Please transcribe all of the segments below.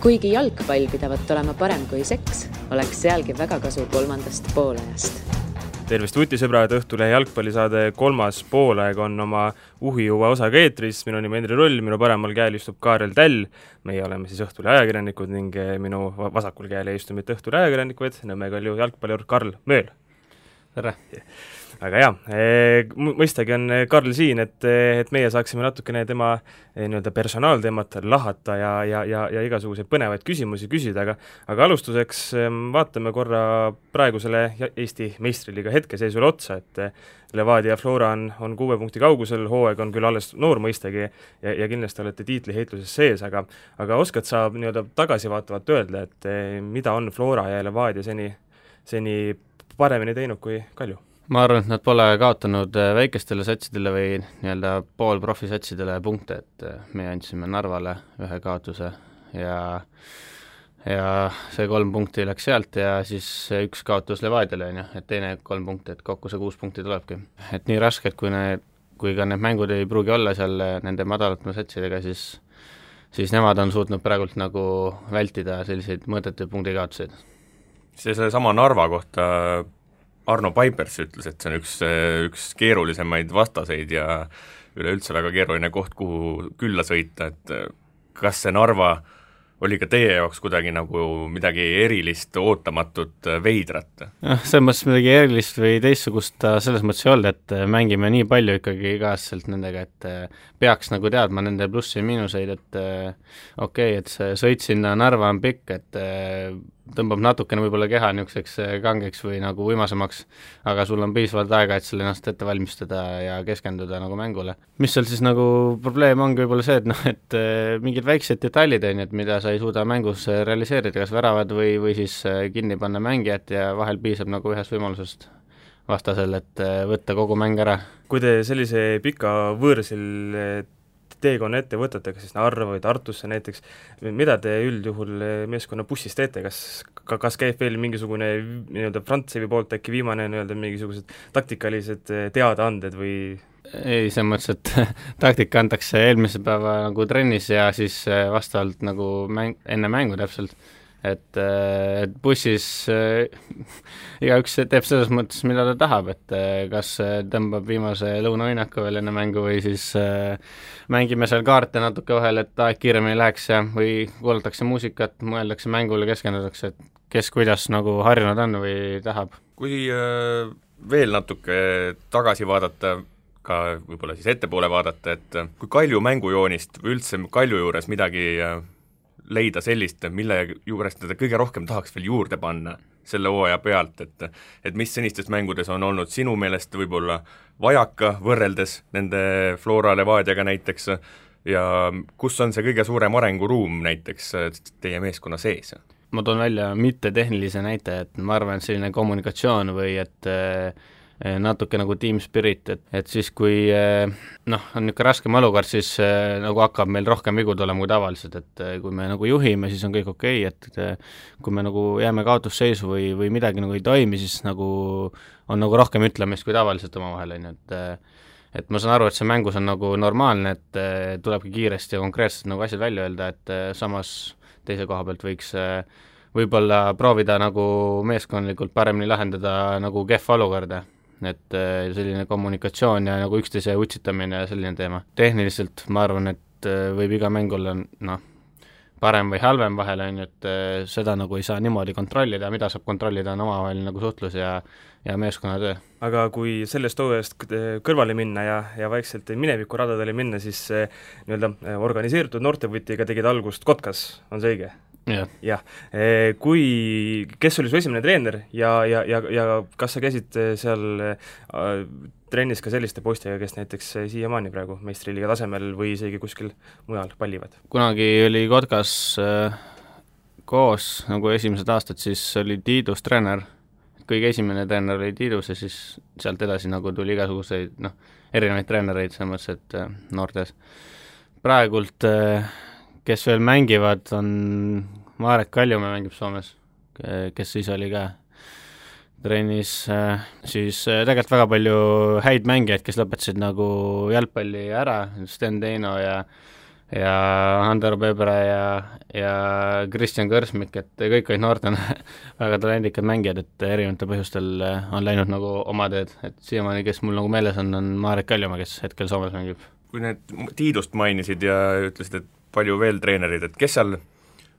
Kuigi jalgpall pidavat olema parem kui seks, oleks sealgi väga kasu 3. poolajast. Tervist vutisõbrad, Õhtulehe jalgpallisaade 3. poolaeg on oma uhijuva osaga eetris. Minu nimi Endri Rull, minu paremal käel istub Kaarel Täll. Meie oleme siis Õhtulehe ajakirjanikud ning minu vasakul käel ei istu mitte Õhtulehe ajakirjanikud, Nõmme Kalju jalgpallur Karl Mööl. Tere! Aga mõistagi on Karl siin, et meie saaksime natukene tema personaalteemat lahata ja igasuguseid põnevaid küsimusi küsida, aga alustuseks vaatame korra praegusele Eesti meistriliiga hetkeseisule otsa, et Levadia Flora on 6 punkti kaugusel, hooaeg on küll alles noor mõistagi ja kindlasti olete tiitliheitluses sees, aga oskad sa tagasivaatavalt öelda, et mida on Flora ja Levadia seni paremini teinud kui Kalju? Ma arvan, et nad pole kaotanud väikestele satsidele või poolprofisatsidele punkte, et me andsime Narvale 1 kaotuse ja see 3 punkti läks sealt ja siis 1 kaotus Levadiale, et teine 3 punkti, et kokku see 6 punkti tulebki. Et nii raske, et kui ka need mängud ei pruugi olla seal nende madalatma satsidega, siis nemad on suutnud praegult nagu vältida selliseid mõõdetuid punktikaotuseid. Selle sama Narva kohta Arno Paipers ütles, et see on üks keerulisemaid vastaseid ja üleüldse väga keeruline koht, kuhu külla sõita, et kas see Narva oli ka teie jaoks kuidagi nagu midagi erilist, ootamatut, veidrat? Selles mõttes midagi erilist või teistsugust selles mõttes ei olnud, et mängime nii palju ikkagi igaselt nendega, et peaks nagu teadma nende plussi ja miinuseid, et et see sõit sinna Narva on pikk, et tõmbab natukene võib-olla keha niisuguseks kangeks või nagu uimasemaks, aga sul on piisavalt aega, et selle ennast ette valmistada ja keskenduda nagu mängule. Mis seal siis nagu probleem ongi võib-olla see, et mingid väiksed detailid on, et mida sa ei suuda mängus realiseerida, kas väravad või siis kinni panna mängijat ja vahel piisab nagu ühest võimalusest vastasel, et võtta kogu mäng ära. Kui te sellise pika võõrsil teekonna ette võtate, kas siis Narva või Tartusse näiteks, mida te üldjuhul meeskonna bussis teete, kas käib veel mingisugune Frantsevi poolt äkki viimane mingisugused taktikalised teadaanded või? Ei, see mõttes, et taktika antakse eelmise päeva nagu trennis ja siis vastavalt nagu enne mängu täpselt, et bussis igaüks teeb selles mõttes, mida ta tahab, et kas tõmbab viimase lõunaõinaku veel enne mängu või siis mängime seal kaarte natuke vahel, et aeg kiiremini läheks ja või kuulatakse muusikat, mõeldakse mängule, keskendutakse, et kes kuidas nagu harjunud on või tahab. Kui veel natuke tagasi vaadata, ka võib-olla siis ettepoole vaadata, et kui Kalju mängujoonist või üldse Kalju juures midagi leida sellist, mille juures teda kõige rohkem tahaks veel juurde panna selle hooaja pealt, et mis senistes mängudes on olnud sinu meelest võib-olla vajaka võrreldes nende Flora Levadiaga näiteks ja kus on see kõige suurem arenguruum näiteks teie meeskonna sees? Ma toon välja mitte tehnilise näite, et ma arvan, et selline kommunikatsioon või et natuke nagu team spirit, et siis kui on niisugune raskem olukord, siis nagu hakkab meil rohkem vigu tulema kui tavaliselt, et kui me nagu juhime, siis on kõik okei, et kui me nagu jääme kaotusseisu või midagi nagu ei toimi, siis nagu on nagu rohkem ütlemist kui tavaliselt omavahel, et ma saan aru, et see mängus on nagu normaalne, et tulebki kiiresti ja konkreetselt nagu asjad välja öelda, et samas teise koha pealt võiks võib-olla proovida nagu meeskondlikult paremini lahendada nagu kehva olukorda, et selline kommunikatsioon ja nagu üksteise utsitamine ja selline teema. Tehniliselt ma arvan, et võib iga mäng olla parem või halvem vahel, et seda nagu ei saa niimoodi kontrollida, mida saab kontrollida on omavahel nagu suhtlus ja meeskonnatöö. Aga kui sellest hooajast kõrvale minna ja vaikselt mineviku radadele minna, siis organiseeritud noortevõtiga tegid algust Kotkas, on see õige? Jah. Kes oli su esimene treener ja kas sa käisid seal trennis ka selliste poistega, kes näiteks siiamaani praegu meistriliiga tasemel või isegi kuskil mujal pallivad? Kunagi oli Kotkas koos nagu esimesed aastad, siis oli Tiidus treener, kõige esimene treener oli Tiidus ja siis sealt edasi nagu tuli igasuguseid erinevaid treenereid, selles mõttes, et noortes. Praegult kes veel mängivad, on Marek Kaljumäe mängib Soomes, kes siis oli ka trennis, siis tegelikult väga palju häid mängijaid, kes lõpetasid nagu jalgpalli ära, Sten Teino ja ja Andero Pebre ja Kristjan Kõrsmik, et kõik olid noortena väga talendikad mängijad, et erinevatel põhjustel on läinud nagu oma teed, et siiamaani, kes mul nagu meeles on Marek Kaljumaa, kes hetkel Soomes mängib. Kui need Tiidust mainisid ja ütlesid, et palju veel treenerid, et kes seal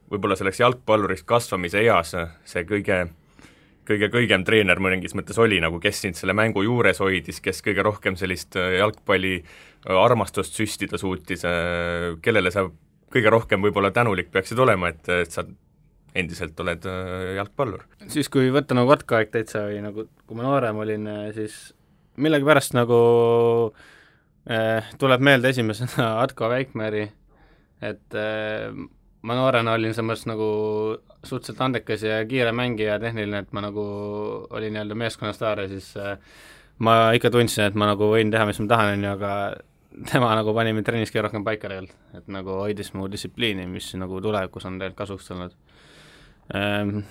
võib-olla selleks jalgpalluriks kasvamise eas see kõigem treener mõningis mõttes oli, nagu kes sind selle mängu juures hoidis, kes kõige rohkem sellist jalgpalli armastust süstida suutis, kellele sa kõige rohkem võib-olla tänulik peaksid olema, et sa endiselt oled jalgpallur? Siis, kui võtta nagu Kotka-aeg täitsa või nagu, kui ma noorem olin, siis millegipärast nagu tuleb meelde esimesena Atko Väikmäri, et ma noorena olin selles nagu suhteliselt andekas ja kiire mängija ja tehniline, et ma nagu olin nii-öelda meeskonna staar ja siis ma ikka tundsin, et ma nagu võin teha, mis ma tahan, aga tema nagu pani mind trennis kõige rohkem paika tegelikult, et nagu hoidis mu distsipliini, mis nagu tulevikus on tegelikult kasuks tulnud.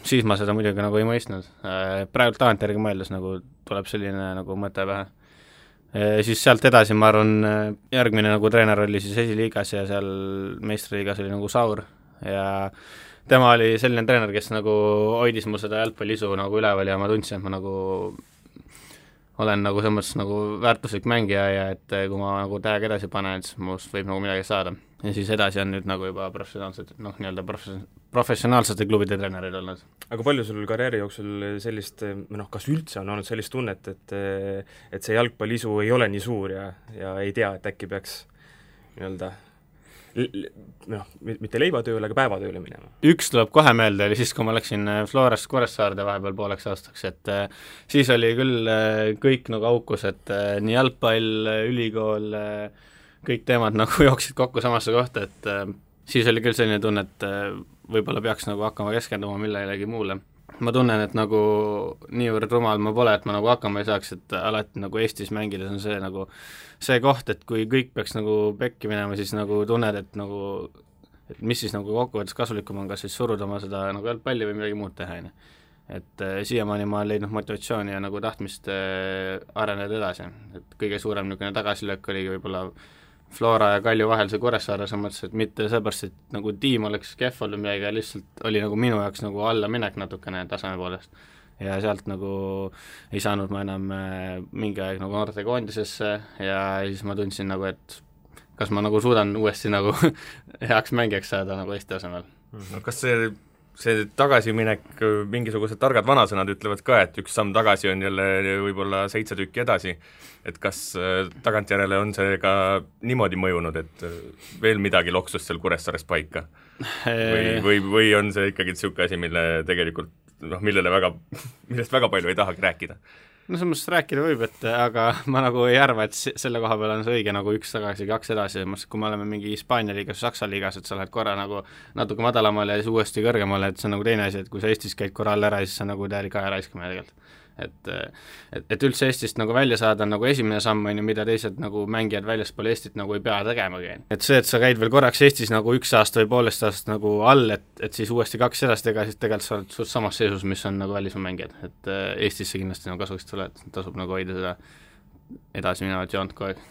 Siis ma seda muidugi nagu ei mõistnud. Praegu tagantjärgi mõeldes nagu tuleb selline nagu mõte pähe. Siis sealt edasi, ma arvan, järgmine nagu treener oli siis esiliigas ja seal meistriliigas oli nagu Saur ja tema oli selline treener, kes nagu hoidis mul seda jalgpalliisu nagu üleval ja ma tundsin, et ma nagu olen nagu selles mõttes nagu väärtuslik mängija ja et kui ma nagu täiega edasi panen, siis must võib nagu midagi saada. Ja siis edasi on nüüd nagu juba nii-öelda professionaalsete klubide treenerid olnud. Aga palju sul karjääri jooksul sellist, kas üldse on olnud sellist tunnet, et see jalgpalliisu ei ole nii suur ja ei tea, et äkki peaks nii-öelda mitte leivatööle, aga päevatööle minema? Üks tuleb kohe meelde, oli siis, kui ma läksin Florast Kuressaarde vahepeal pooleks aastaks, et siis oli küll kõik nagu aukus, et nii jalgpall, ülikool, kõik teemad nagu jooksid kokku samasse kohta, et siis oli küll selline tunne, et võib-olla peaks nagu hakkama keskenduma millegi muule. Ma tunnen, et nagu niivõrd rumal ma pole, et ma nagu hakkama ei saaks, et alati nagu Eestis mängides on see nagu see koht, et kui kõik peaks nagu pekki minema, siis nagu tunned, et nagu et mis siis nagu kokkuvõttes kasulikum on, kas siis suruda oma seda nagu jalgpalli või midagi muud teha, et siiamaani ma olen leidnud motivatsiooni ja nagu tahtmist areneda edasi, et kõige suurem niisugune tagasilöök oligi võib-olla Flora ja Kalju vahel see Kuressaare, sa mõtlesid, et mitte seepärast, et nagu tiim oleks kehv olnud midagi, lihtsalt oli nagu minu jaoks nagu alla minek natukene taseme poolest. Ja sealt nagu ei saanud ma enam mingi aeg nagu noortekoondisesse ja siis ma tundsin nagu, et kas ma nagu suudan uuesti nagu heaks mängijaks saada nagu Eesti tasemel. No kas see tagasiminek, mingisugused targad vanasõnad ütlevad ka, et üks samm tagasi on jälle võib-olla 7 tükki edasi, et kas tagantjärele on see ka niimoodi mõjunud, et veel midagi loksus seal Kuressaares paika? Või on see ikkagi niisugune asi, mille tegelikult millest väga palju ei tahagi rääkida? No selles mõttes rääkida võib, aga ma nagu ei arva, et selle koha peal on see õige nagu 1 tagasi, 2 edasi, kui me oleme mingi Hispaania liigas, Saksa liigas, et sa lähed korra nagu natuke madalamale ja siis uuesti kõrgemale, et see on nagu teine asi, et kui sa Eestis käid korra all ära, siis sa nagu täielik aja raiskamine tegelikult. Et üldse Eestist nagu välja saada on nagu esimene samm, mida teised nagu mängijad väljaspool Eestit nagu ei pea tegemagi. Et see, et sa käid veel korraks Eestis nagu 1 aasta või poolest aastast nagu all, et siis uuesti 2 edasi teha, siis tegelikult sa oled suht samas seisus, mis on nagu välismaa mängijad. Et Eestisse kindlasti nagu kasuks tule, et tasub nagu hoida seda edasi minevat joont kogu aeg.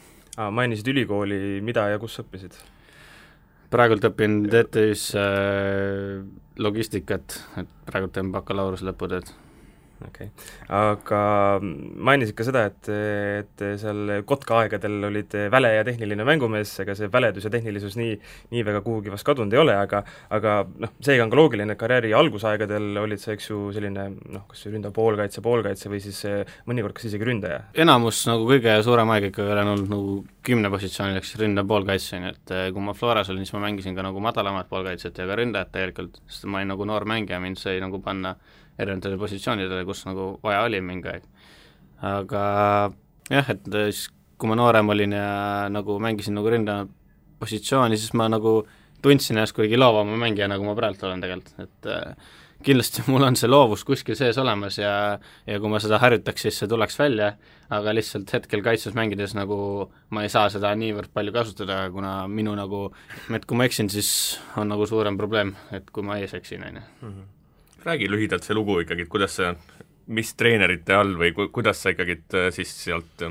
Mainisid ülikooli, mida ja kus õppisid? Praegult õpin TTÜ-s logistikat, et praegult teen bakalaureuse lõputööd. Okay. Aga mainisid ka seda, et seal Kotka aegadel olid väle ja tehniline mängumees, ega see väledus ja tehnilisus nii väga kuhugi vast kadunud ei ole, aga seega on ka loogiline, et karjääri algusaegadel olid see, eks ju, selline kas ründav poolkaitse või siis mõnikord kas isegi ründaja? Enamus nagu kõige suurem aeg ikka olen olnud nagu 10 positsioonil, eks ründav poolkaitse, et kui ma Floras olin, siis ma mängisin ka nagu madalamat poolkaitset ja ka ründajat tegelikult, sest ma olin nagu noor mängija, mind sai nagu panna erinevatele positsioonidele, kus nagu vaja oli mingi aeg. Aga jah, et siis kui ma noorem olin ja nagu mängisin nagu ründajana positsiooni, siis ma nagu tundsin ennast kuigi loovama mängija, nagu ma praegu olen tegelikult, et kindlasti mul on see loovus kuskil sees olemas ja kui ma seda harjutaks, siis see tuleks välja, aga lihtsalt hetkel kaitses mängides nagu ma ei saa seda niivõrd palju kasutada, kuna minu nagu, et kui ma eksin, siis on nagu suurem probleem, et kui ma ees eksin, Räägi lühidalt see lugu ikkagi, et kuidas sa, mis treenerite all või kuidas sa ikkagi siis sealt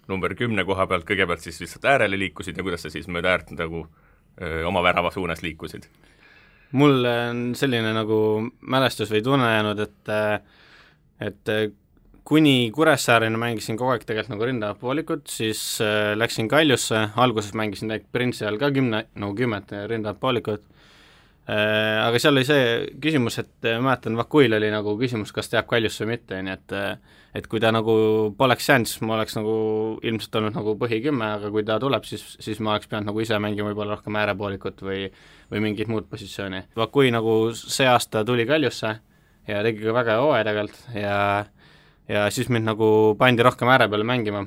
number 10 koha pealt kõigepealt siis lihtsalt äärele liikusid ja kuidas sa siis mööda äärt nagu oma värava suunas liikusid? mul on selline nagu mälestus või tunne jäänud, et kuni Kuressaareni mängisin kogu aeg tegelikult nagu ründavat poolikut, siis läksin Kaljusse, alguses mängisin Prinsi all ka 10 ründavat poolikut, aga seal oli see küsimus, et mäletan, Vakuil oli nagu küsimus, kas ta jääb Kaljusse või mitte, nii et kui ta nagu poleks jäänud, siis ma oleks nagu ilmselt olnud nagu põhi 10, aga kui ta tuleb, siis ma oleks pidanud nagu ise mängima võib-olla rohkem äärepoolikut või mingit muud positsiooni. Vakui nagu see aasta tuli Kaljusse ja tegi ka väga hooaja tegelikult ja siis mind nagu pandi rohkem ääre peale mängima.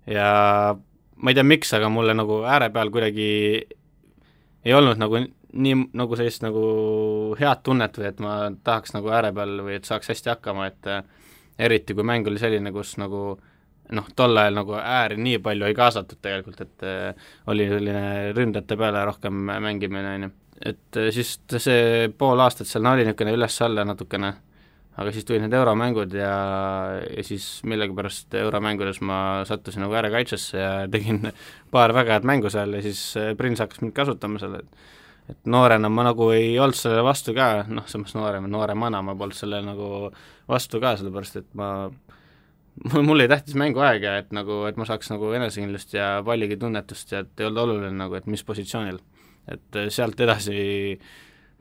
Ja ma ei tea, miks, aga mulle nagu ääre peal kuidagi ei olnud nagu nii nagu sellist nagu head tunnet või et ma tahaks nagu ääre peal või et saaks hästi hakkama, et eriti kui mäng oli selline, kus nagu tol ajal nagu ääri nii palju ei kaasatud tegelikult, et oli selline ründajate peale rohkem mängimine, on ju. Et siis see pool aastat seal oli niisugune üles-alla natukene, aga siis tulid need euromängud ja siis millegipärast euromängudes ma sattusin nagu äärekaitsesse ja tegin paar väga head mängu seal ja siis Prins hakkas mind kasutama selle, et noorena ma nagu ei olnud sellele vastu ka, samas nooremana ma polnud sellele nagu vastu ka, sellepärast et mul ei tähtis mänguaeg ja et ma saaks nagu enesekindlust ja palligi tunnetust ja et ei olnud oluline nagu, et mis positsioonil. Et sealt edasi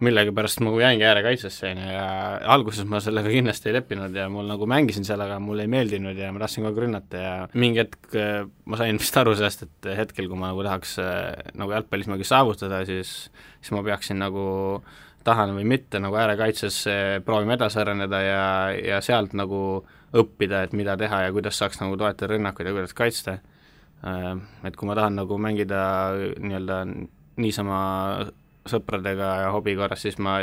millegipärast ma jäingi äärekaitsesse ja alguses ma sellega kindlasti ei leppinud ja mul nagu mängisin seal, aga mulle ei meeldinud ja ma tahtsin kogu aeg rünnata ja mingi hetk ma sain vist aru sellest, et hetkel, kui ma nagu tahaks nagu jalgpallis midagi saavutada, siis ma peaksin nagu tahan või mitte nagu äärekaitses proovima edasi areneda ja sealt nagu õppida, et mida teha ja kuidas saaks nagu toetada rünnakuid ja kuidas kaitsta. Et kui ma tahan nagu mängida nii-öelda niisama sõpradega ja hobi korras, siis ma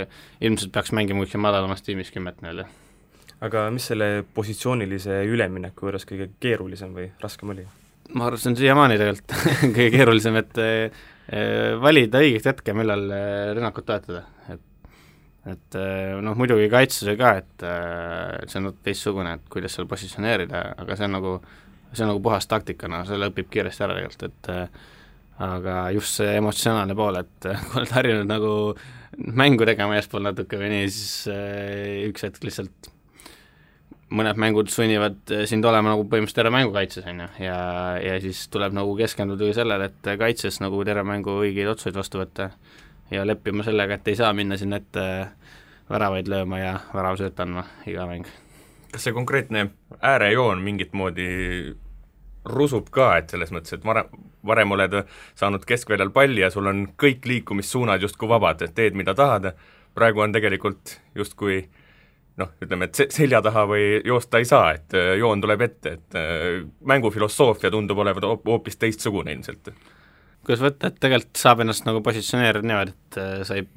ilmselt peaks mängima kuskil madalamas tiimis 10 nii-öelda. Aga mis selle positsioonilise ülemineku juures kõige keerulisem või raskem oli? Ma arvan, see on siiamaani tegelikult kõige keerulisem, et valida õiget hetke, millal rünnakut toetada. Et muidugi kaitses ka, et see on teistsugune, et kuidas seal positsioneerida, aga see on nagu puhas taktikana, selle õpib kiiresti ära tegelikult, et aga just see emotsionaalne pool, et kui oled harjunud nagu mängu tegema eespool natuke või nii, siis üks hetk lihtsalt mõned mängud sunnivad sind olema nagu põhimõtteliselt terve mängu kaitses, on ju, ja siis tuleb nagu keskenduda sellele, et kaitses nagu terve mängu õigeid otsuseid vastu võtta ja leppima sellega, et ei saa minna sinna ette väravaid lööma ja väravasööt andma iga mäng. Kas see konkreetne äärejoon mingit moodi rusub ka, et selles mõttes, et varem oled saanud keskväljal palli ja sul on kõik liikumissuunad justkui vabad, et teed, mida tahad, praegu on tegelikult justkui ütleme, et selja taha või joosta ei saa, et joon tuleb ette, et mängufilosoofia tundub olevat hoopis teistsugune ilmselt. Kuidas võtta, et tegelikult saab ennast nagu positsioneerida niimoodi, et sa ei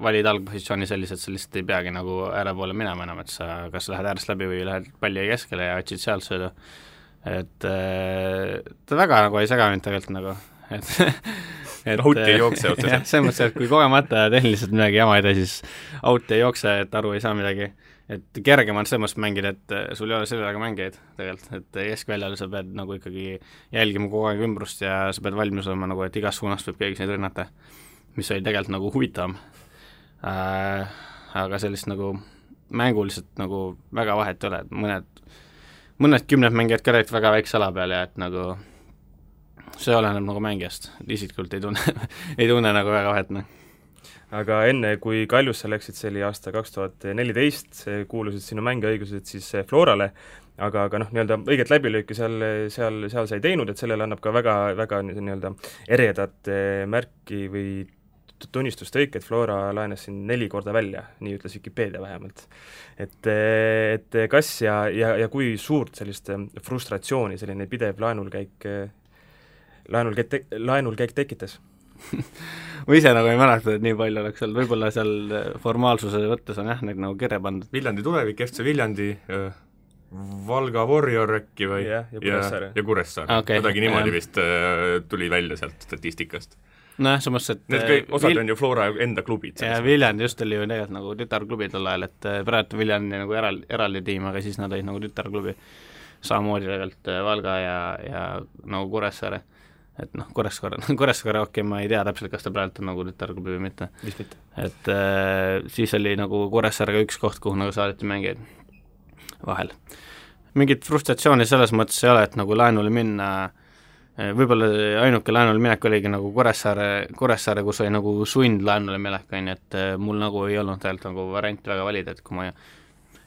valid algpositsiooni sellised, sa lihtsalt ei peagi nagu ääre poole minema enam, et sa kas lähed äärest läbi või lähed palli keskele ja otsid sealt sööda. Et ta väga nagu ei sega mind tegelikult nagu, et out ei jookse otseselt. Jah, selles mõttes, et kui kogemata tehniliselt midagi jama ei tee, siis out ei jookse, et aru ei saa midagi. Et kergem on selles mõttes mängida, et sul ei ole sellega mängijaid tegelikult, et keskväljal sa pead nagu ikkagi jälgima kogu aeg ümbrust ja sa pead valmis olema nagu, et igas suunast võib keegi sind rünnata, mis oli tegelikult nagu huvitavam. Aga sellist nagu mänguliselt nagu väga vahet ei ole, et mõned 10 mängijad ka räägid väga väikse ala peal ja et nagu see oleneb nagu mängijast, isiklikult ei tunne nagu väga vahet. Aga enne, kui Kaljusse läksid, see oli aasta 2014, kuulusid sinu mängeõigused siis Florale, aga nii-öelda õiget läbilööki seal sai teinud, et sellele annab ka väga nii-öelda eredat märki või tunnistustõik, et Flora laenas siin 4 korda välja, nii ütles Wikipedia vähemalt. Et kas ja kui suurt sellist frustratsiooni selline pidev laenulkäik tekitas? Ma ise nagu ei mäleta, et nii palju oleks seal, võib-olla seal formaalsuse võttes on jah, neid nagu kirja pandud. Viljandi tulevik, FC Viljandi, Valga Warrior äkki või ja Kuressaare. Okay. Kuidagi niimoodi vist tuli välja sealt statistikast. Nojah, samas, et need osad on ju Flora enda klubid. Ja Viljandi just oli ju tegelikult nagu tütarklubi tol ajal, et praegu Viljandi nagu eraldi tiim, aga siis nad olid nagu tütarklubi. Samamoodi tegelikult Valga ja nagu Kuressaare. et noh, Kuressaare okei, ma ei tea täpselt, kas ta praegu on nagu tütarklubi või mitte. Vist mitte. Et siis oli nagu Kuressaarega üks koht, kuhu nagu saadeti mängijaid vahel. Mingit frustratsiooni selles mõttes ei ole, et nagu laenule minna, võib-olla ainuke laenule minek oligi nagu Kuressaare, kus oli nagu sund laenule minek, et mul nagu ei olnud tegelikult nagu varianti väga valida, et kui ma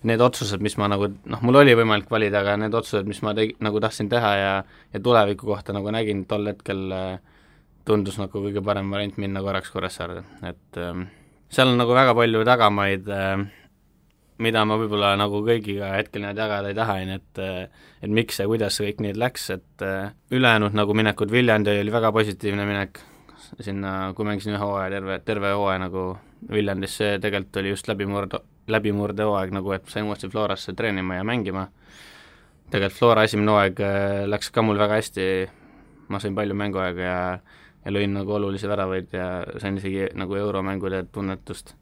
need otsused, mis ma nagu, noh, mul oli võimalik valida, aga need otsused, mis ma nagu tahtsin teha ja tuleviku kohta nagu nägin, tol hetkel tundus nagu kõige parem variant minna korraks Kuressaarde, et seal on nagu väga palju tagamaid, mida ma võib-olla nagu kõigiga hetkel need jagada ei taha, et miks ja kuidas see kõik nii läks, et ülejäänud nagu minekud, Viljandi oli väga positiivne minek sinna, kui mängisin ühe hooaja, terve hooaja nagu Viljandis, see tegelikult oli just läbimurde hooaeg nagu, et sain uuesti Florasse treenima ja mängima. Tegelikult Flora esimene hooaeg läks ka mul väga hästi, ma sain palju mänguaega ja lõin nagu olulisi väravaid ja sain isegi nagu euromängude tunnetust.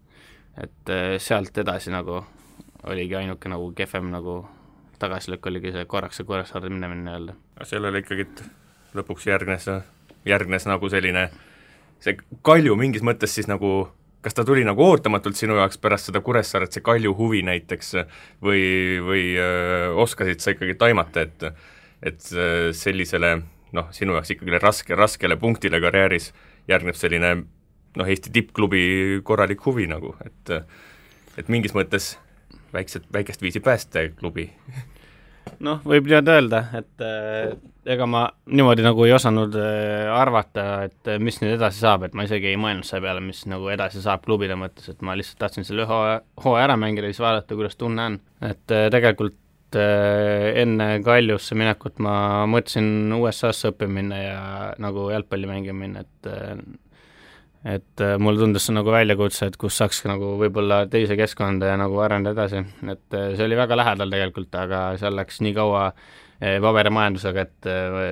Et sealt edasi nagu oligi ainuke nagu kehvem nagu tagasilõkk oligi see korraks see Kuressaarde minemine öelda. Sellele ikkagi lõpuks järgnes nagu selline, see Kalju mingis mõttes siis nagu, kas ta tuli nagu ootamatult sinu jaoks pärast seda Kuressaaret, see Kalju huvi näiteks, või oskasid sa ikkagi taimata, et sellisele, noh, sinu jaoks ikkagi raskele punktile karjääris järgneb selline, noh, Eesti tippklubi korralik huvi nagu, et mingis mõttes väikest viisi päästeklubi. Noh, võib öelda, et ega ma niimoodi nagu ei osanud arvata, et mis nüüd edasi saab, et ma isegi ei mõelnud selle peale, mis nagu edasi saab klubide mõttes, et ma lihtsalt tahtsin selle hooaja ära mängida ja siis vaadata, kuidas tunne on. Et tegelikult enne Kaljusse minekut ma mõtlesin USA-sse õppima minna ja nagu jalgpalli mängima minna, et mulle tundus see nagu väljakutse, et kus saaks nagu võib-olla teise keskkonda ja nagu arendada edasi, et see oli väga lähedal tegelikult, aga seal läks nii kaua paberimajandusega, et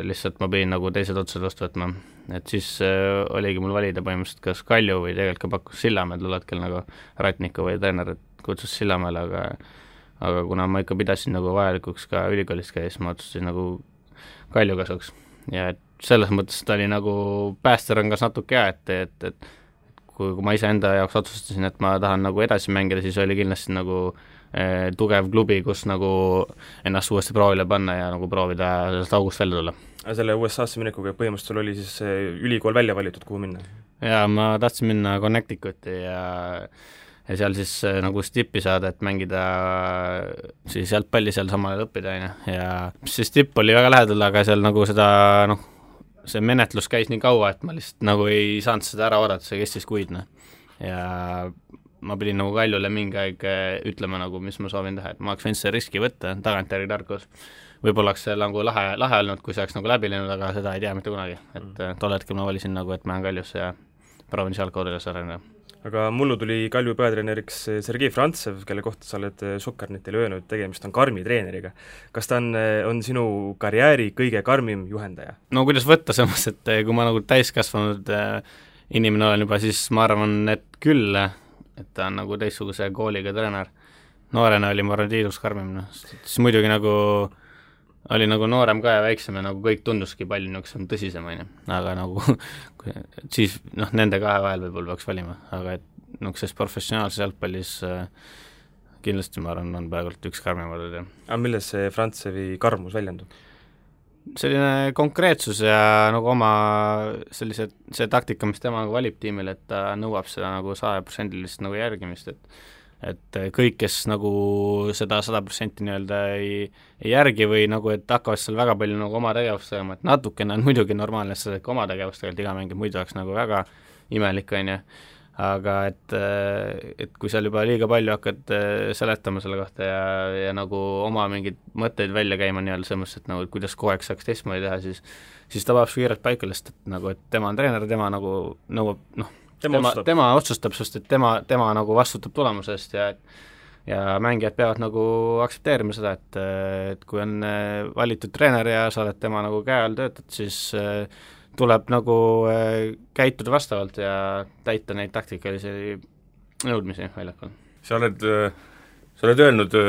lihtsalt ma pidin nagu teised otsad vastu võtma, et siis oligi mul valida põhimõtteliselt kas Kalju või tegelikult ka pakkus Sillamäe tol hetkel nagu Ratniku või treener kutsus Sillamäele, aga kuna ma ikka pidasin nagu vajalikuks ka ülikoolist käia, siis ma otsustasin nagu Kalju kasuks ja et selles mõttes ta oli nagu päästerõngas natuke et kui ma ise enda jaoks otsustasin, et ma tahan nagu edasi mängida, siis oli kindlasti nagu tugev klubi, kus nagu ennast uuesti proovile panna ja nagu proovida sellest august välja tulla. Aga selle USA-sse minekuga põhimõtteliselt oli siis ülikool välja valitud, kuhu minna? Jaa, ma tahtsin minna Connecticuti ja seal siis nagu stippi saada, et mängida siis jalgpalli seal samal õppida, ja see stipp oli väga lähedal, aga seal nagu seda, noh, see menetlus käis nii kaua, et ma lihtsalt nagu ei saanud seda ära oodata, see kestis kuid, ja ma pidin nagu Kaljule mingi aeg ütlema nagu, mis ma soovin teha, et ma oleks võinud see riski võtta, tagantjärgi tarkus. Võib-olla oleks see nagu lahe olnud, kui see oleks nagu läbi läinud, aga seda ei tea mitte kunagi, et tol hetkel ma valisin nagu, et ma olen Kaljusse ja proovin seal koodades arendada. Aga mullu tuli Kalju peatreeneriks Sergei Frantsev, kelle kohta sa oled Sokkarnetile öelnud, tegemist on karmi treeneriga. Kas ta on sinu karjääri kõige karmim juhendaja? No kuidas võtta samas, et kui ma nagu täiskasvanud inimene olen juba, siis ma arvan, et küll, et ta on nagu teistsuguse kooliga treener. Noorena oli ma arvan tiidus karmim, siis muidugi nagu oli nagu noorem ka ja väiksem ja nagu kõik tunduski palju niisugusem tõsisem, aga nagu siis nende kahe vahel võib-olla peaks valima, aga et niisuguses professionaalses jalgpallis kindlasti ma arvan, on praegult üks karmimad. Aga milles see Frantsevi karmus väljendub? Selline konkreetsus ja nagu oma see taktika, mis tema nagu valib tiimile, et ta nõuab seda nagu 100% nagu järgimist, et kõik, kes nagu seda 100% nii-öelda ei järgi või nagu, et hakkavad seal väga palju nagu oma tegevust tegema, et natukene on muidugi normaalne, et oma tegevust tegelikult iga mängib, muidu oleks nagu väga imelik, aga et kui seal juba liiga palju hakkad seletama selle kohta ja nagu oma mingeid mõtteid välja käima nii-öelda selles, et nagu, kuidas kogu aeg saaks teistmoodi teha, siis ta vajab su kiirelt paika lihtsalt, et nagu, et tema on treener, tema nagu nõuab, tema otsustab, sest et tema nagu vastutab tulemusest ja mängijad peavad nagu aktsepteerima seda, et kui on valitud treener ja sa oled tema nagu käe all töötad, siis tuleb nagu käituda vastavalt ja täita neid taktikalisi nõudmisi väljakul. Sa oled öelnud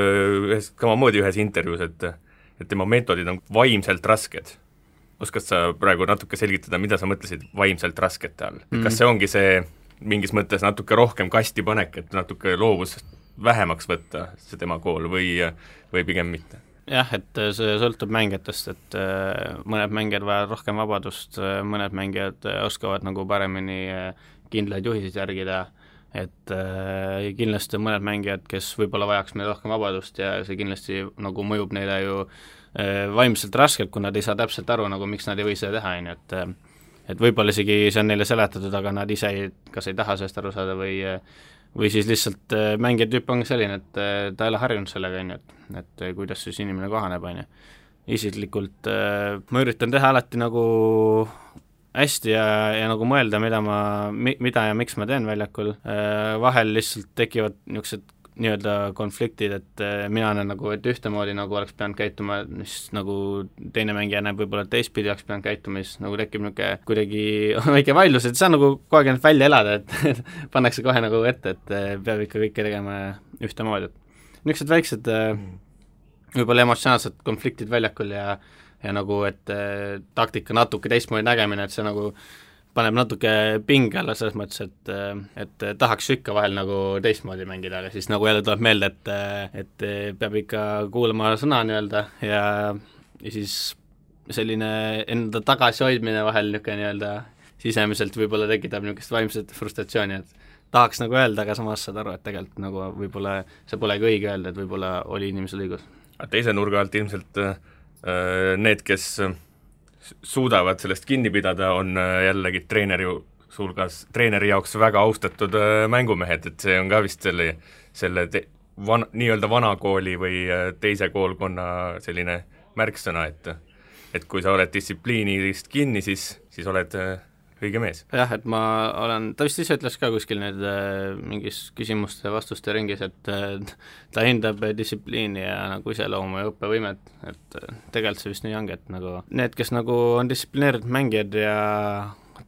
samamoodi ühes intervjuus, et tema meetodid on vaimselt rasked. oskad sa praegu natuke selgitada, mida sa mõtlesid vaimselt raskete all? Kas see ongi see mingis mõttes natuke rohkem kasti panek, et natuke loovust vähemaks võtta see tema kool või pigem mitte? Jah, et see sõltub mängijatest, et mõned mängijad vajavad rohkem vabadust, mõned mängijad oskavad nagu paremini kindlaid juhiseid järgida, et kindlasti on mõned mängijad, kes võib-olla vajaks meil rohkem vabadust ja see kindlasti nagu mõjub neile ju vaimselt raskelt, kui nad ei saa täpselt aru, nagu miks nad ei või seda teha, et võib-olla isegi see on neile seletatud, aga nad ise kas ei taha sellest aru saada või siis lihtsalt mängija tüüp on selline, et ta ei ole harjunud sellega, et kuidas siis inimene kohaneb, isiklikult ma üritan teha alati nagu hästi ja nagu mõelda, mida ja miks ma teen väljakul, vahel lihtsalt tekivad niisugused nii-öelda konfliktid, et mina näen nagu, et ühtemoodi nagu oleks pidanud käituma, siis nagu teine mängija näeb võib-olla teistpidi oleks pidanud käituma, siis nagu tekib niisugune kuidagi väike vaidlus, et see on nagu kogu aeg välja elada, et pannakse kohe nagu ette, et peab ikka kõike tegema ühtemoodi, et niisugused väiksed võib-olla emotsionaalsed konfliktid väljakul ja nagu, et taktika natuke teistmoodi nägemine, et see nagu paneb natuke pinge alla selles mõttes, et tahaks ikka vahel nagu teistmoodi mängida, aga siis nagu jälle tuleb meelde, et peab ikka kuulama sõna nii-öelda ja siis selline enda tagasihoidmine vahel niisugune nii-öelda sisemiselt võib-olla tekitab niisugust vaimset frustratsiooni, et tahaks nagu öelda, aga samas saad aru, et tegelikult nagu võib-olla see polegi õige öelda, et võib-olla oli inimesel õigus. Teise nurga alt ilmselt need, kes suudavad sellest kinni pidada, on jällegi treeneri jaoks väga austatud mängumehed, et see on ka vist selle nii-öelda vanakooli või teise koolkonna selline märksõna, et kui sa oled distsipliinist kinni, siis oled õige mees. Jah, et ta vist ise ütles ka kuskil need mingis küsimuste vastuste ringis, et ta hindab distsipliini ja nagu iseloomu ja õppevõimet, et tegelikult see vist nii ongi, et nagu need, kes nagu on distsiplineeritud mängijad ja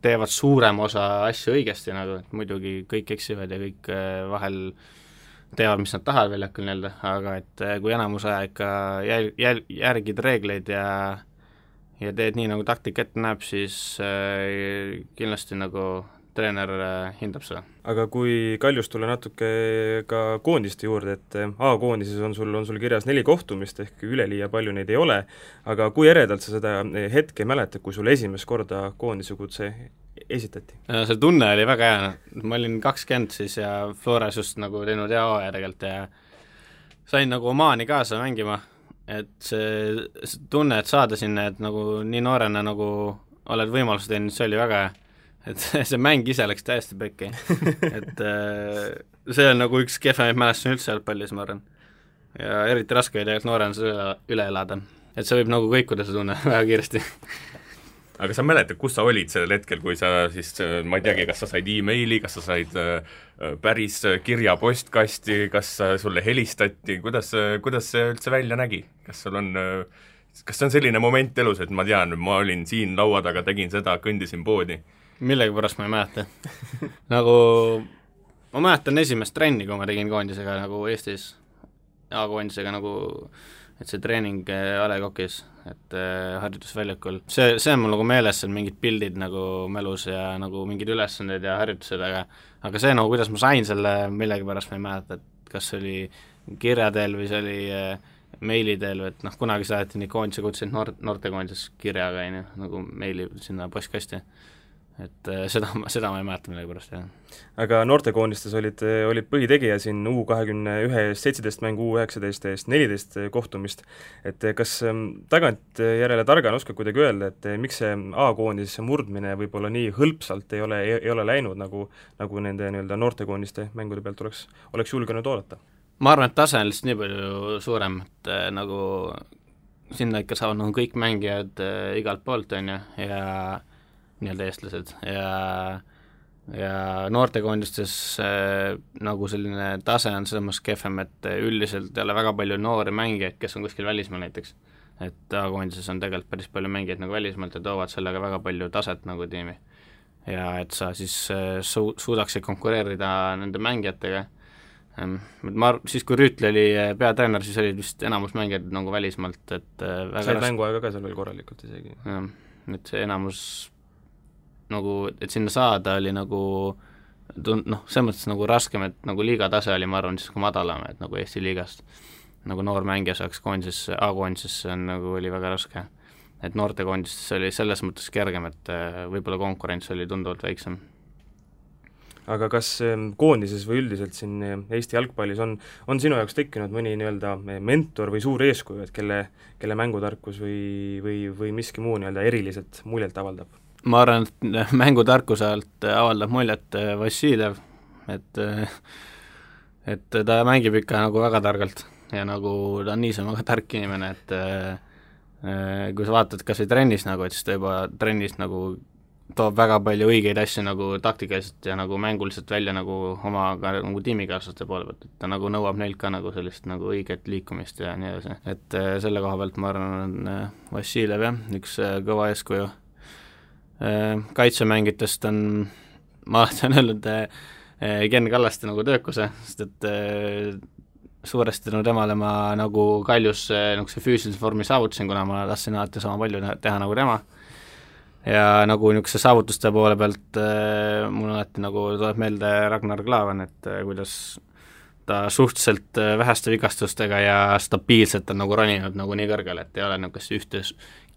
teevad suurem osa asju õigesti, nagu et muidugi kõik eksivad ja kõik vahel teevad, mis nad tahavad väljakul nii-öelda, aga et kui enamus aja ikka järgid reegleid ja teed nii, nagu taktika ette näeb, siis kindlasti nagu treener hindab seda. Aga kui Kaljust tulla natuke ka koondiste juurde, et A-koondises on sul kirjas 4 kohtumist, ehk üleliia palju neid ei ole, aga kui eredalt sa seda hetke mäletad, kui sul esimest korda koondise kutse esitati? See tunne oli väga hea, ma olin 20 siis ja Flores just nagu teinud hea hooaja tegelikult ja sain nagu Omaani kaasa mängima, et see tunne, et saada sinna, et nagu nii noorena nagu oled võimaluse teinud, see oli väga hea, et see mäng ise läks täiesti pekki, et see on nagu üks kehvemaid mälestusi üldse jalgpallis, ma arvan, ja eriti raske oli tegelikult noorena seda üle elada, et see võib nagu kõikuda see tunne väga kiiresti. Aga sa mäletad, kus sa olid sellel hetkel, kui sa siis, ma ei teagi, kas sa said e-maili, kas sa said päris kirja postkasti, kas sulle helistati, kuidas see üldse välja nägi? Kas see on selline moment elus, et ma tean, ma olin siin laua taga, tegin seda, kõndisin poodi? Millegipärast ma ei mäleta. Nagu ma mäletan esimest trenni, kui ma tegin koondisega nagu Eestis, A-koondisega nagu, et see treening A Le Coq'is, et harjutusväljakul, see on mul nagu meeles, seal mingid pildid nagu mälus ja nagu mingid ülesanded ja harjutused, aga see nagu, kuidas ma sain selle, millegipärast ma ei mäleta, et kas see oli kirja teel või see oli meili teel, et noh, kunagi saadeti nii koondise kutseid noortekoondises kirjaga, nagu meili sinna postkasti. Et seda ma ei mäleta millegipärast, jah. Aga noortekoondistes olid põhitegija siin U21 17 mängu, U19 eest 14 kohtumist, et kas tagantjärele targana oskad kuidagi öelda, et miks see A-koondise murdmine võib-olla nii hõlpsalt ei ole läinud, nagu nende nii-öelda noortekoondiste mängude pealt oleks julgenud oodata? Ma arvan, et tase on lihtsalt nii palju suurem, et nagu sinna ikka saavad nagu kõik mängijad igalt poolt, on ju, ja nii-öelda eestlased ja noortekoondistes nagu selline tase on selles mõttes kehvem, et üldiselt ei ole väga palju noori mängijaid, kes on kuskil välismaal näiteks, et A-koondises on tegelikult päris palju mängijaid nagu välismaalt ja toovad sellega väga palju taset nagu tiimi ja et sa siis suudaksid konkureerida nende mängijatega. Siis kui Rüütli oli peatreener, siis olid vist enamus mängijad nagu välismaalt, et said mänguaega ka seal veel korralikult isegi. et see enamus nagu, et sinna saada oli nagu selles mõttes nagu raskem, et nagu liiga tase oli, ma arvan, siis kui madalam, et nagu Eesti liigast nagu noor mängija saaks koondisesse, A-koondisesse on nagu oli väga raske. Et noortekoondisesse oli selles mõttes kergem, et võib-olla konkurents oli tunduvalt väiksem. Aga kas koondises või üldiselt siin Eesti jalgpallis on sinu jaoks tekkinud mõni nii-öelda mentor või suur eeskuju, et kelle mängutarkus või miski muu nii-öelda eriliselt muljet avaldab? Ma arvan, et mängutarkuse alt avaldab muljet Vassiljev, et ta mängib ikka nagu väga targalt ja nagu ta on niisama väga tark inimene, et kui sa vaatad kas või trennis nagu, et siis ta juba trennis nagu toob väga palju õigeid asju nagu taktikaliselt ja nagu mänguliselt välja nagu oma nagu tiimikaaslaste poole pealt, et ta nagu nõuab neilt ka nagu sellist nagu õiget liikumist ja nii edasi, et selle koha pealt ma arvan, on Vassiljev jah, üks kõva eeskuju. Kaitsemängitest on, ma olen öelnud Ken Kallaste nagu töökuse, sest et suuresti temale ma nagu Kaljus see füüsilise vormi saavutasin, kuna ma tahtsin alati sama palju teha nagu tema. Ja nagu niisuguse saavutuste poole pealt mul alati nagu tuleb meelde Ragnar Klavan, et kuidas ta suhteliselt väheste vigastustega ja stabiilselt on nagu roninud nagu nii kõrgele, et ei ole niisugust ühte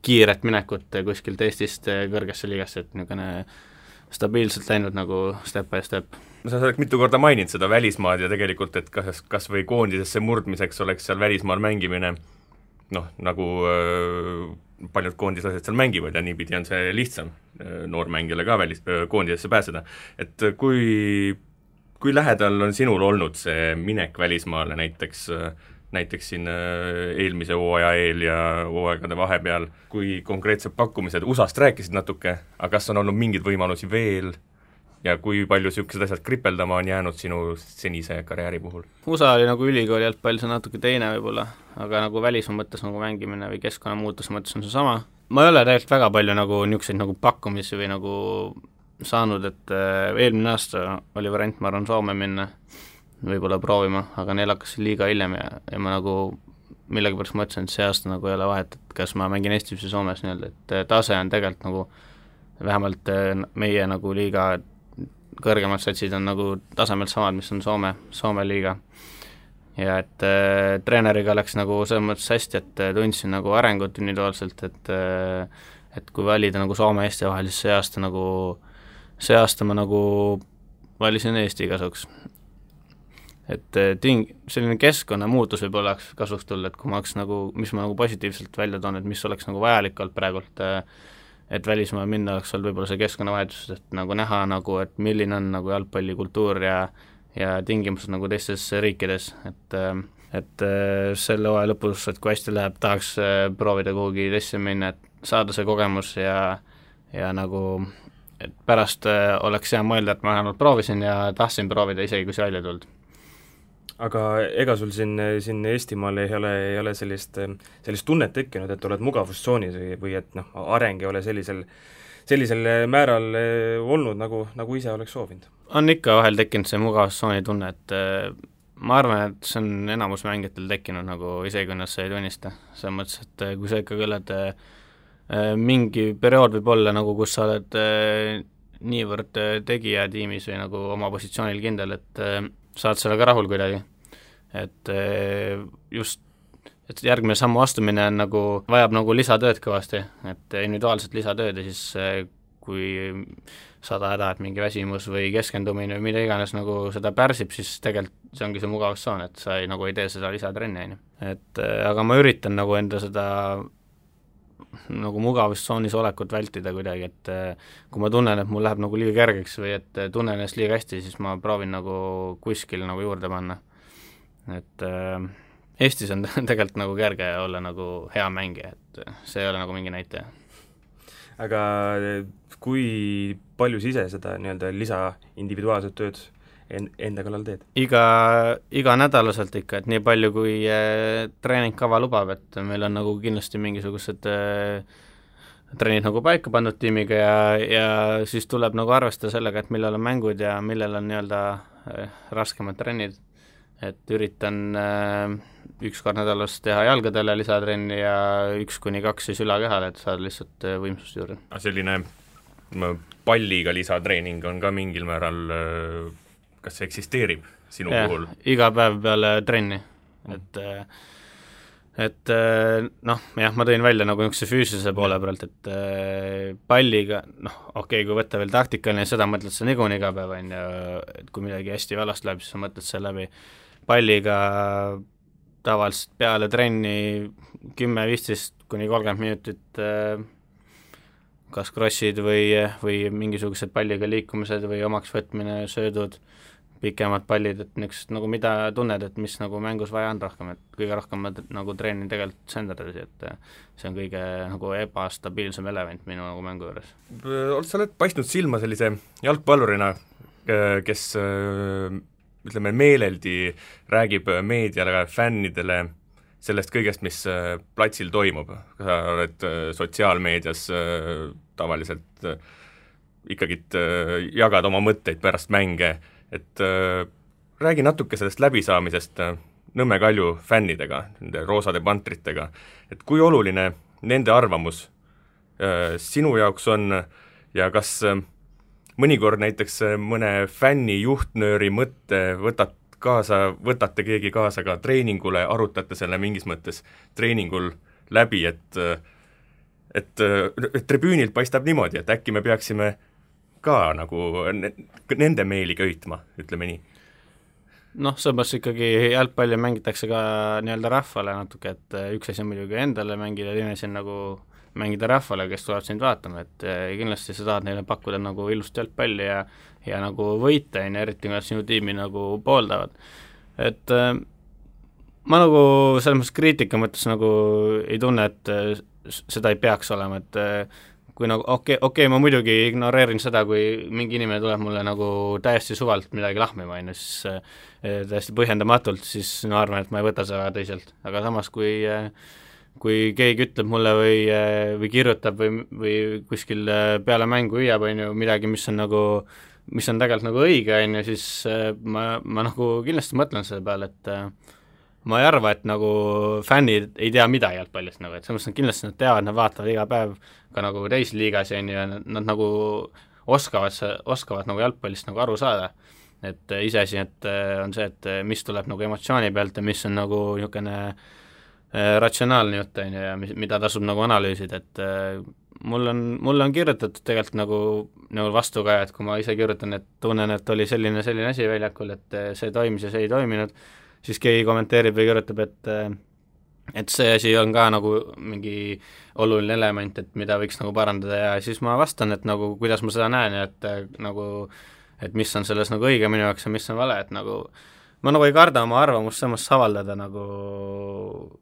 kiiret minekut kuskilt Eestist kõrgesse liigasse, et niisugune stabiilselt läinud nagu step by step. Sa oled mitu korda maininud seda välismaad ja tegelikult, et kas või koondisesse murdmiseks oleks seal välismaal mängimine, nagu paljud koondislased seal mängivad ja niipidi on see lihtsam noormängijale ka koondisesse pääseda. Et kui lähedal on sinul olnud see minek välismaale näiteks siin eelmise hooaja eel ja hooaegade vahepeal, kui konkreetsed pakkumised, USA-st rääkisid natuke, aga kas on olnud mingeid võimalusi veel ja kui palju niisugused asjad kripeldama on jäänud sinu senise karjääri puhul? USA oli nagu ülikooli jalgpall, see on natuke teine võib-olla, aga nagu välismaa mõttes nagu mängimine või keskkonna muutuse mõttes on see sama. Ma ei ole tegelikult väga palju nagu niisuguseid nagu pakkumisi või nagu saanud, et eelmine aasta oli variant, ma arvan, Soome minna võib-olla proovima, aga neil hakkas liiga hiljem ja ma nagu millegipärast mõtlesin, et see aasta nagu ei ole vahet, et kas ma mängin Eestis või Soomes nii-öelda, et tase on tegelikult nagu vähemalt meie nagu liiga kõrgemad satsid on nagu tasemelt samad, mis on Soome liiga. Ja et treeneriga läks nagu selles mõttes hästi, et tundsin nagu arengut individuaalselt, et kui valida nagu Soome ja Eesti vahel, siis see aasta ma nagu valisin Eesti kasuks. Et selline keskkonna muutus võib-olla oleks kasuks tulla, et kui ma oleks nagu, mis ma nagu positiivselt välja toon, et mis oleks nagu vajalik olnud praegult, et välismaa minna oleks olnud võib-olla see keskkonnavahetus, et nagu näha nagu, et milline on nagu jalgpallikultuur ja tingimused nagu teistes riikides, et selle hooaja lõpus, et kui hästi läheb, tahaks proovida kuhugi teisse minna, et saada see kogemus ja nagu et pärast oleks hea mõelda, et ma vähemalt proovisin ja tahtsin proovida isegi, kui see välja tulnud. Aga ega sul siin Eestimaal ei ole sellist tunnet tekkinud, et oled mugavustsoonis või et areng ei ole sellisel määral olnud, nagu ise oleks soovinud? On ikka vahel tekkinud see mugavustsooni tunne, et ma arvan, et see on enamus mängijatel tekkinud nagu isegi, kui nad see ei tunnista. Selles mõttes, et kui sa ikka oled mingi periood võib olla nagu, kus sa oled niivõrd tegija tiimis või nagu oma positsioonil kindel, et saad sellega rahul kuidagi, et just et järgmine sammu astumine on nagu, vajab nagu lisatööd kõvasti, et individuaalselt lisatööd ja siis kui saad ajada, et mingi väsimus või keskendumine või mida iganes nagu seda pärsib, siis tegelikult see ongi see mugavustsoon, et sa ei tee seda lisatrenni, et aga ma üritan nagu enda seda nagu mugavustsoonis olekut vältida kuidagi, et kui ma tunnen, et mul läheb nagu liiga kergeks või et tunnen ennast liiga hästi, siis ma proovin nagu kuskil nagu juurde panna. Et Eestis on tegelikult nagu kerge olla nagu hea mängija, et see ei ole nagu mingi näitaja. Aga kui palju sa ise seda nii-öelda lisa individuaalset tööd enda kallal teed? Iga nädalaselt ikka, et nii palju kui treeningkava lubab, et meil on nagu kindlasti mingisugused treenid nagu paika pandud tiimiga ja siis tuleb nagu arvestada sellega, et millal on mängud ja millal on nii-öelda raskemad trennid, et üritan 1 kord nädalas teha jalgadele lisatrenni ja 1-2 siis ülakehale, et saada lihtsalt võimsust juurde. Selline palliga lisatreening on ka mingil määral, kas see eksisteerib sinu puhul? Iga päev peale trenni, et noh, jah, ma tõin välja nagu niisuguse füüsilise poole pealt, et palliga, okei, kui võtta veel taktikaline, seda mõtled sa niikuinii iga päev, on ju, et kui midagi hästi valast läheb, siis sa mõtled selle läbi. Palliga tavaliselt peale trenni 10-15-30 minutit kas crossid või mingisugused palliga liikumised või omaks võtmine, söödud, pikemad pallid, et niisugused nagu mida tunned, et mis nagu mängus vaja on rohkem, et kõige rohkem ma nagu treenin tegelikult senderdasi, et see on kõige nagu ebastabiilsem element minu nagu mängu juures. Sa oled paistnud silma sellise jalgpallurina, kes ütleme meeleldi räägib meediale, fännidele sellest kõigest, mis platsil toimub. Sa oled sotsiaalmeedias tavaliselt ikkagi jagad oma mõtteid pärast mänge, et räägi natuke sellest läbisaamisest Nõmme Kalju fännidega, nende roosade pantritega, et kui oluline nende arvamus sinu jaoks on ja kas mõnikord näiteks mõne fänni juhtnööri mõtte võtate keegi kaasa ka treeningule, arutate selle mingis mõttes treeningul läbi, et tribüünilt paistab niimoodi, et äkki me peaksime ka nagu nende meeli köitma, ütleme nii. Samas ikkagi jalgpalli mängitakse ka nii-öelda rahvale natuke, et üks asi on muidugi endale mängida, teine asi on nagu mängida rahvale, kes tuleb sind vaatama, et kindlasti sa tahad neile pakkuda nagu ilust jalgpalli ja nagu võita, eriti kui nad sinu tiimi nagu pooldavad. Et ma nagu selles mõttes kriitika mõttes nagu ei tunne, et seda ei peaks olema, et kui nagu okei, ma muidugi ignoreerin seda, kui mingi inimene tuleb mulle nagu täiesti suvalt midagi lahmima, siis täiesti põhjendamatult, siis ma arvan, et ma ei võta seda tõsiselt, aga samas kui keegi ütleb mulle või kirjutab või kuskil peale mängu hüüab, on ju, midagi, mis on tegelikult nagu õige, on ju, siis ma nagu kindlasti mõtlen selle peale, et ma ei arva, et nagu fännid ei tea midagi jalgpallist, nagu, et selles mõttes kindlasti nad teavad, nad vaatavad iga päev ka nagu teisi liigas, on ju, ja nad nagu oskavad nagu jalgpallist nagu aru saada. Et iseasi, et on see, et mis tuleb nagu emotsiooni pealt ja mis on nagu niisugune ratsionaalne jutt, on ju, ja mida tasub nagu analüüsida, et mul on kirjutatud tegelikult nagu vastu ka, et kui ma ise kirjutan, et tunnen, et oli selline asi väljakul, et see toimis ja see ei toiminud, siis keegi kommenteerib või kirjutab, et see asi on ka nagu mingi oluline element, et mida võiks nagu parandada ja siis ma vastan, et nagu kuidas ma seda näen ja et mis on selles nagu õige minu jaoks ja mis on vale, et nagu ma nagu ei karda oma arvamust samas avaldada nagu,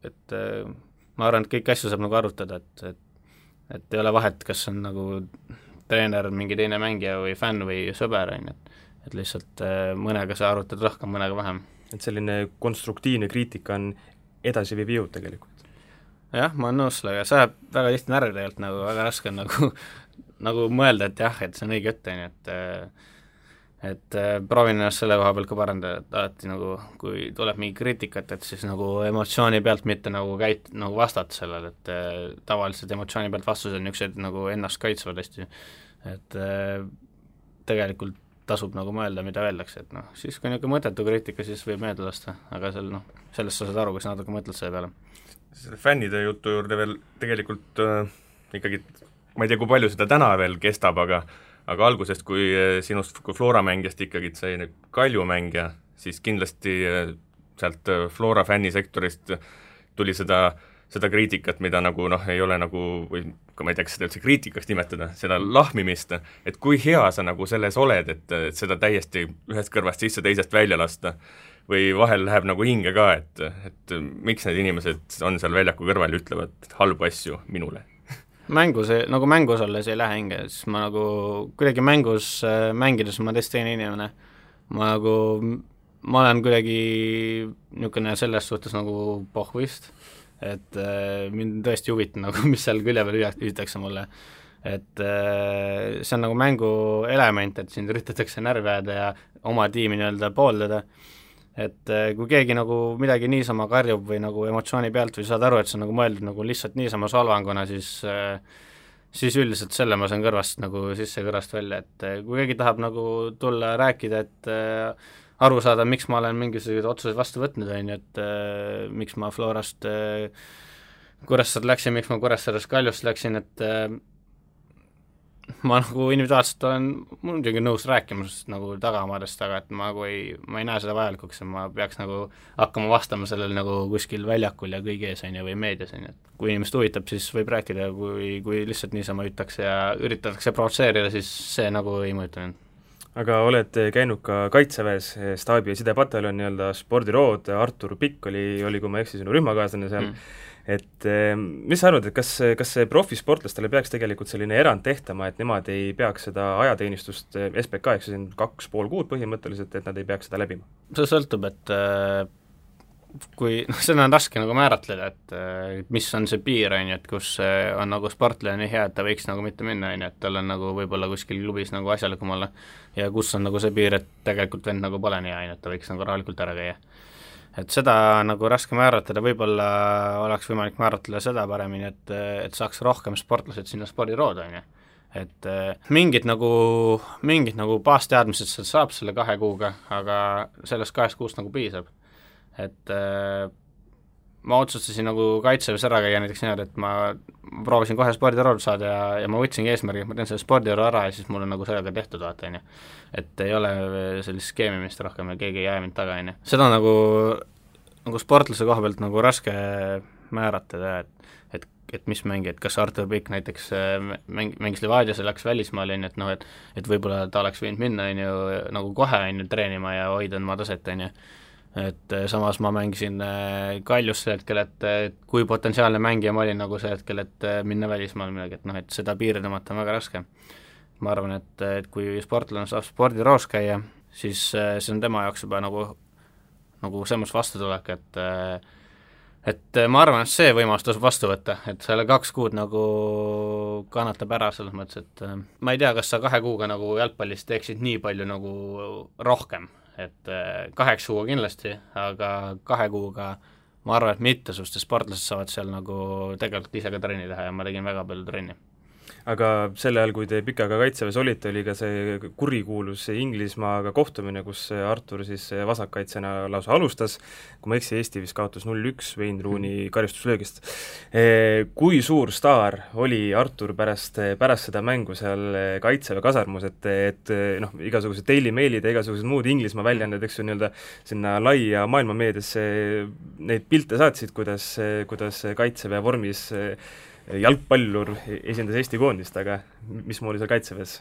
et ma arvan, et kõiki asju saab nagu arutada, et ei ole vahet, kas on nagu treener, mingi teine mängija või fänn või sõber, on ju, et lihtsalt mõnega sa arutad rohkem, mõnega vähem. Et selline konstruktiivne kriitika on edasiviiv jõud tegelikult. Jah, ma olen nõus sellega, see ajab väga tihti närvi tegelikult, nagu väga raske on nagu mõelda, et jah, et see on õige jutt, on ju, et proovin ennast selle koha pealt ka parandada, et alati nagu, kui tuleb mingi kriitikat, et siis nagu emotsiooni pealt mitte nagu nagu vastata sellele, et tavaliselt emotsiooni pealt vastused on niisugused nagu ennast kaitsvad hästi, et tegelikult tasub nagu mõelda, mida öeldakse, et siis kui niisugune mõttetu kriitika, siis võib meelde lasta, aga sellest sa saad aru, kui sa natuke mõtled selle peale. Selle fännide jutu juurde veel tegelikult ikkagi, ma ei tea, kui palju seda täna veel kestab, aga algusest, kui sinust kui Flora mängijast ikkagi sai Kalju mängija, siis kindlasti sealt Flora fännisektorist tuli seda kriitikat, mida nagu ei ole nagu, või ma ei tea, kas seda üldse kriitikaks nimetada, seda lahmimist, et kui hea sa nagu selles oled, et seda täiesti ühest kõrvast sisse, teisest välja lasta, või vahel läheb nagu hinge ka, et miks need inimesed on seal väljaku kõrval ja ütlevad halbu asju minule? Mängus olles ei lähe hinge, siis ma nagu kuidagi mängides ma teist teine inimene, ma olen kuidagi niisugune selles suhtes nagu pohvist, et mind tõesti huvitab nagu, mis seal külje peal hüütakse mulle, et see on nagu mängu element, et sind üritatakse närvi ajada ja oma tiimi nii-öelda pooldada, et kui keegi nagu midagi niisama karjub või nagu emotsiooni pealt või saad aru, et see on nagu mõeldud nagu lihtsalt niisama solvanguna, siis üldiselt selle ma saan kõrvast nagu sisse kõrvast välja, et kui keegi tahab nagu tulla rääkida, et aru saada, miks ma olen mingisuguseid otsuseid vastu võtnud, on ju, et miks ma Florast Kuressaare läksin, miks ma Kuressaarest Kaljust läksin, et ma nagu individuaalselt olen muidugi nõus rääkima nagu tagamaadest, aga et ma ei näe seda vajalikuks, et ma peaks nagu hakkama vastama sellel nagu kuskil väljakul ja kõigi ees, on ju, või meedias, on ju, et kui inimest huvitab, siis võib rääkida, kui lihtsalt niisama hüütakse ja üritatakse provotseerida, siis see nagu ei mõjuta mind. Aga oled käinud ka Kaitseväes, staabi- ja sidepataljon, nii-öelda spordirood, Artur Pikk oli, kui ma eksi, sinu rühmakaaslane seal, et mis sa arvad, et kas see profisportlastele peaks tegelikult selline erand tehtama, et nemad ei peaks seda ajateenistust SBK, eks see on 2,5 kuud põhimõtteliselt, et nad ei peaks seda läbima? See sõltub, et kui, seda on raske nagu määratleda, et mis on see piir, on ju, et kus on nagu sportlane nii hea, et ta võiks nagu mitte minna, on ju, et tal on nagu võib-olla kuskil klubis nagu asjalikum olla, ja kus on nagu see piir, et tegelikult vend nagu pole nii hea, on ju, et ta võiks nagu rahulikult ära käia. Et seda nagu raske määratleda, võib-olla oleks võimalik määratleda seda paremini, et saaks rohkem sportlased sinna spordirood, on ju. Et mingid nagu baasteadmised sealt saab selle 2 kuuga, aga sellest 2 kuust nagu piisab. Et ma otsustasin nagu Kaitseväes ära käia näiteks niimoodi, et ma proovisin kohe spordirood saada ja ma võtsingi eesmärgi, et ma teen selle spordiroo ära ja siis mul on nagu sellega tehtud, vaata, on ju. Et ei ole sellist skeemimist rohkem ja keegi ei jää mind taga, on ju. Seda nagu sportlase koha pealt nagu raske määratada, et mis mängi, et kas Artur Pikk näiteks mängis Levadias ja läks välismaale, on ju, et noh, et võib-olla ta oleks võinud minna, on ju, nagu kohe, on ju, treenima ja hoida oma taset, on ju. Et samas ma mängisin Kaljus see hetkel, et kui potentsiaalne mängija ma olin nagu see hetkel, et minna välismaal midagi, et noh, et seda piiri tõmmata on väga raske. Ma arvan, et kui sportlane saab spordiroos käia, siis see on tema jaoks juba nagu selles vastutulek, et ma arvan, et see võimalus tasub vastu võtta, et selle 2 kuud nagu kannatab ära selles mõttes, et ma ei tea, kas sa 2 kuuga nagu jalgpallis teeksid nii palju nagu rohkem, et 8 kuuga kindlasti, aga 2 kuuga ma arvan, et mitmesugused sportlased saavad seal nagu tegelikult ise ka trenni teha ja ma tegin väga palju trenni. Aga sel ajal, kui te Pikaga Kaitseväes olite, oli ka see kurikuulus Inglismaaga kohtumine, kus Artur siis vasakkaitsena lausa alustas, kui ma eksi, Eesti vist kaotas 0-1 Wayne Rooney karistuslöögist. Kui suur staar oli Artur pärast seda mängu seal Kaitseväe kasarmus, et noh, igasugused Daily Mailid ja igasugused muud Inglismaa väljaanded, eks ju, nii-öelda sinna laia maailmameediasse neid pilte saatsid, kuidas Kaitseväe vormis jalgpallur esindas Eesti koondist, aga mismoodi seal Kaitseväes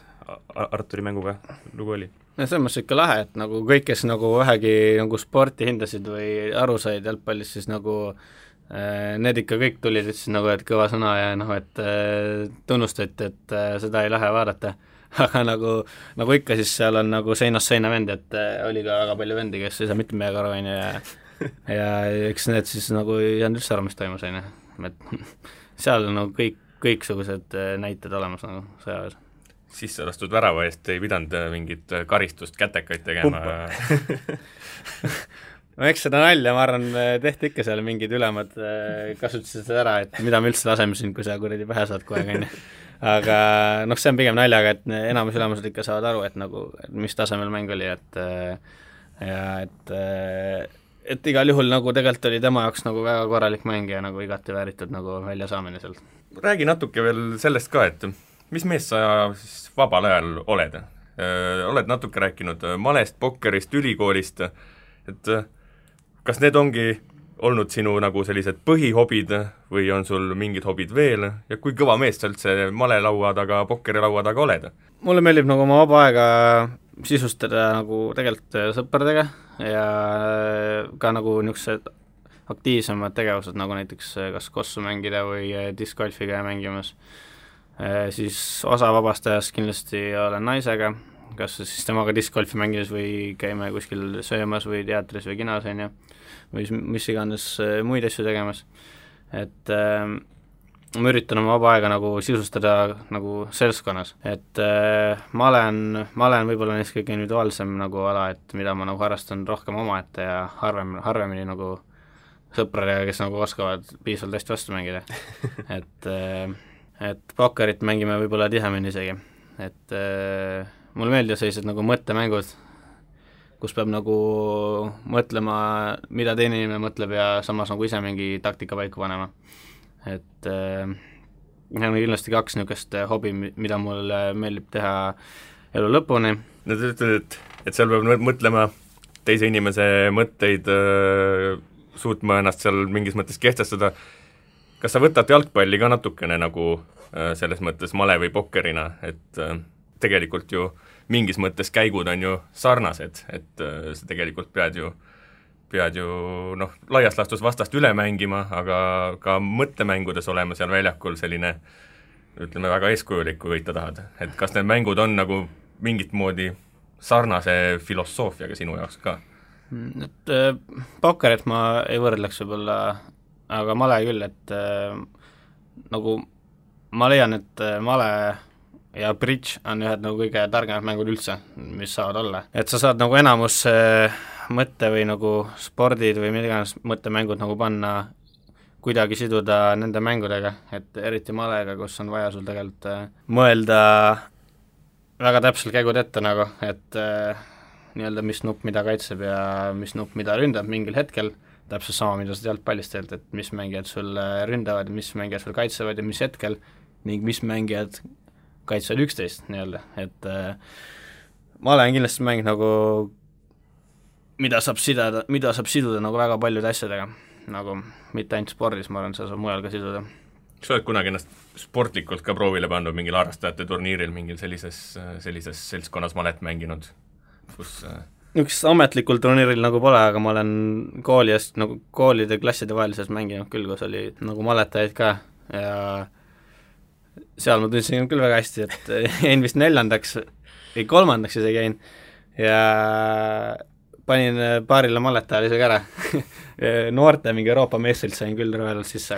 Arturi mänguga lugu oli? No selles mõttes ikka lahe, et nagu kõik, kes nagu vähegi nagu sporti hindasid või aru said jalgpallist, siis nagu need ikka kõik tulid, ütlesid nagu, et kõva sõna ja noh, et tunnustati, et seda ei lähe vaadata. Aga nagu ikka, siis seal on nagu seinast seina vend, et oli ka väga palju vendi, kes ei saa mitte midagi aru, on ju, ja eks need siis nagu ei saanud üldse aru, mis toimus, on ju, et seal on nagu kõiksugused näited olemas nagu sõjaväes. Sisse lastud värava eest ei pidanud mingit karistust, kätekaid tegema? No eks seda nalja, ma arvan, tehti ikka seal mingid ülemad, kasutasid seda ära, et mida me üldse laseme siin, kui sa kuradi pähe saad kohe, on ju. Aga noh, see on pigem naljaga, et enamus ülemused ikka saavad aru, et nagu, mis tasemel mäng oli, et igal juhul nagu tegelikult oli tema jaoks nagu väga korralik mäng ja nagu igati vääritud nagu väljasaamine sealt. Räägi natuke veel sellest ka, et mis mees sa siis vabal ajal oled? Oled natuke rääkinud malest, pokkerist, ülikoolist, et kas need ongi olnud sinu nagu sellised põhihobid või on sul mingid hobid veel ja kui kõva mees sa üldse malelaua taga, pokkerilaua taga oled? Mulle meeldib nagu oma vaba aega sisustada nagu tegelikult sõpradega ja ka nagu niisugused aktiivsemad tegevused, nagu näiteks kas kossu mängida või discgolfiga mängimas. Siis osa vabast ajast kindlasti olen naisega, kas siis temaga discgolfi mängides või käime kuskil söömas või teatris või kinos, on ju, või mis iganes muid asju tegemas. Et ma üritan oma vaba aega nagu sisustada nagu seltskonnas, et ma olen võib-olla neist kõige individuaalsem nagu ala, et mida ma nagu harrastan rohkem omaette ja harvemini nagu sõpradega, kes nagu oskavad piisavalt hästi vastu mängida. et pokkerit mängime võib-olla tihemini isegi, et mulle meeldivad sellised nagu mõttemängud, kus peab nagu mõtlema, mida teine inimene mõtleb ja samas nagu ise mingi taktika paika panema. Et on kindlasti 2 niisugust hobi, mida mul meeldib teha elu lõpuni. No te ütled, et seal peab mõtlema teise inimese mõtteid, suutma ennast seal mingis mõttes kehtestada. Kas sa võtad jalgpalli ka natukene nagu selles mõttes male või pokkerina, et tegelikult ju mingis mõttes käigud on ju sarnased, et sa tegelikult pead ju noh, laias laastus vastast üle mängima, aga ka mõttemängudes olema seal väljakul selline, ütleme, väga eeskujulik, kui võita tahad. Et kas need mängud on nagu mingit moodi sarnase filosoofiaga sinu jaoks ka? Et pokkerit ma ei võrdleks võib-olla, aga male küll, et nagu ma leian, et male ja bridge on ühed nagu kõige targemad mängud üldse, mis saavad olla. Et sa saad nagu enamus mõtte või nagu spordid või midagi mõttemängud nagu panna, kuidagi siduda nende mängudega, et eriti malega, kus on vaja sul tegelikult mõelda väga täpselt käigud ette nagu, et nii-öelda mis nupp mida kaitseb ja mis nupp mida ründab mingil hetkel, täpselt sama, mida sa jalgpallist teelt, et mis mängijad sul ründavad, mis mängijad sul kaitsevad ja mis hetkel ning mis mängijad kaitsevad 11 nii-öelda, et ma olen kindlasti mäng nagu, mida saab siduda nagu väga paljude asjadega, nagu mitte ainult spordis, ma arvan, seda saab mujal ka siduda. Kas sa oled kunagi ennast sportlikult ka proovile pannud mingil harrastajate turniiril, mingil sellises seltskonnas malet mänginud, kus üks ametlikul turniiril nagu pole, aga ma olen nagu koolide klasside vahelises mänginud küll, kus oli nagu maletajaid ka ja seal ma tundsin küll väga hästi, et jäin vist 4. või 3. isegi jäin ja panin paarile maletajale isegi ära. Noorte mingi Euroopa meestrilt sain küll rõvelalt sisse,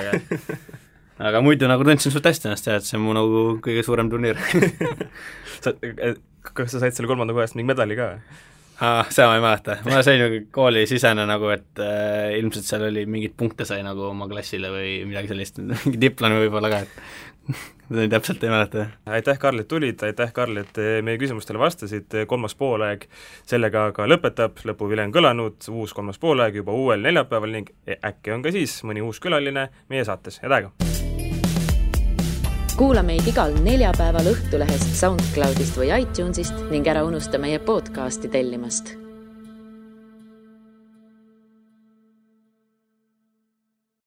aga muidu nagu tundsin suht hästi ennast ja et see on mu nagu kõige suurem turniir. Kas sa said selle 3. kohast mingi medali ka? Seda ma ei mäleta, ma sain nagu kooli sisene nagu, et ilmselt seal oli mingid punkte sai nagu oma klassile või midagi sellist, mingi diplomi võib-olla ka, et seda täpselt ei mäleta. Aitäh, Karl, et tulid, aitäh, Karl, et meie küsimustele vastasid, 3. poolaeg sellega ka lõpetab, lõpuvile on kõlanud, uus 3. poolaeg juba uuel neljapäeval ning äkki on ka siis mõni uus külaline meie saates, head aega! Kuula meid igal neljapäeval Õhtulehest, SoundCloudist või iTunesist ning ära unusta meie podcasti tellimast.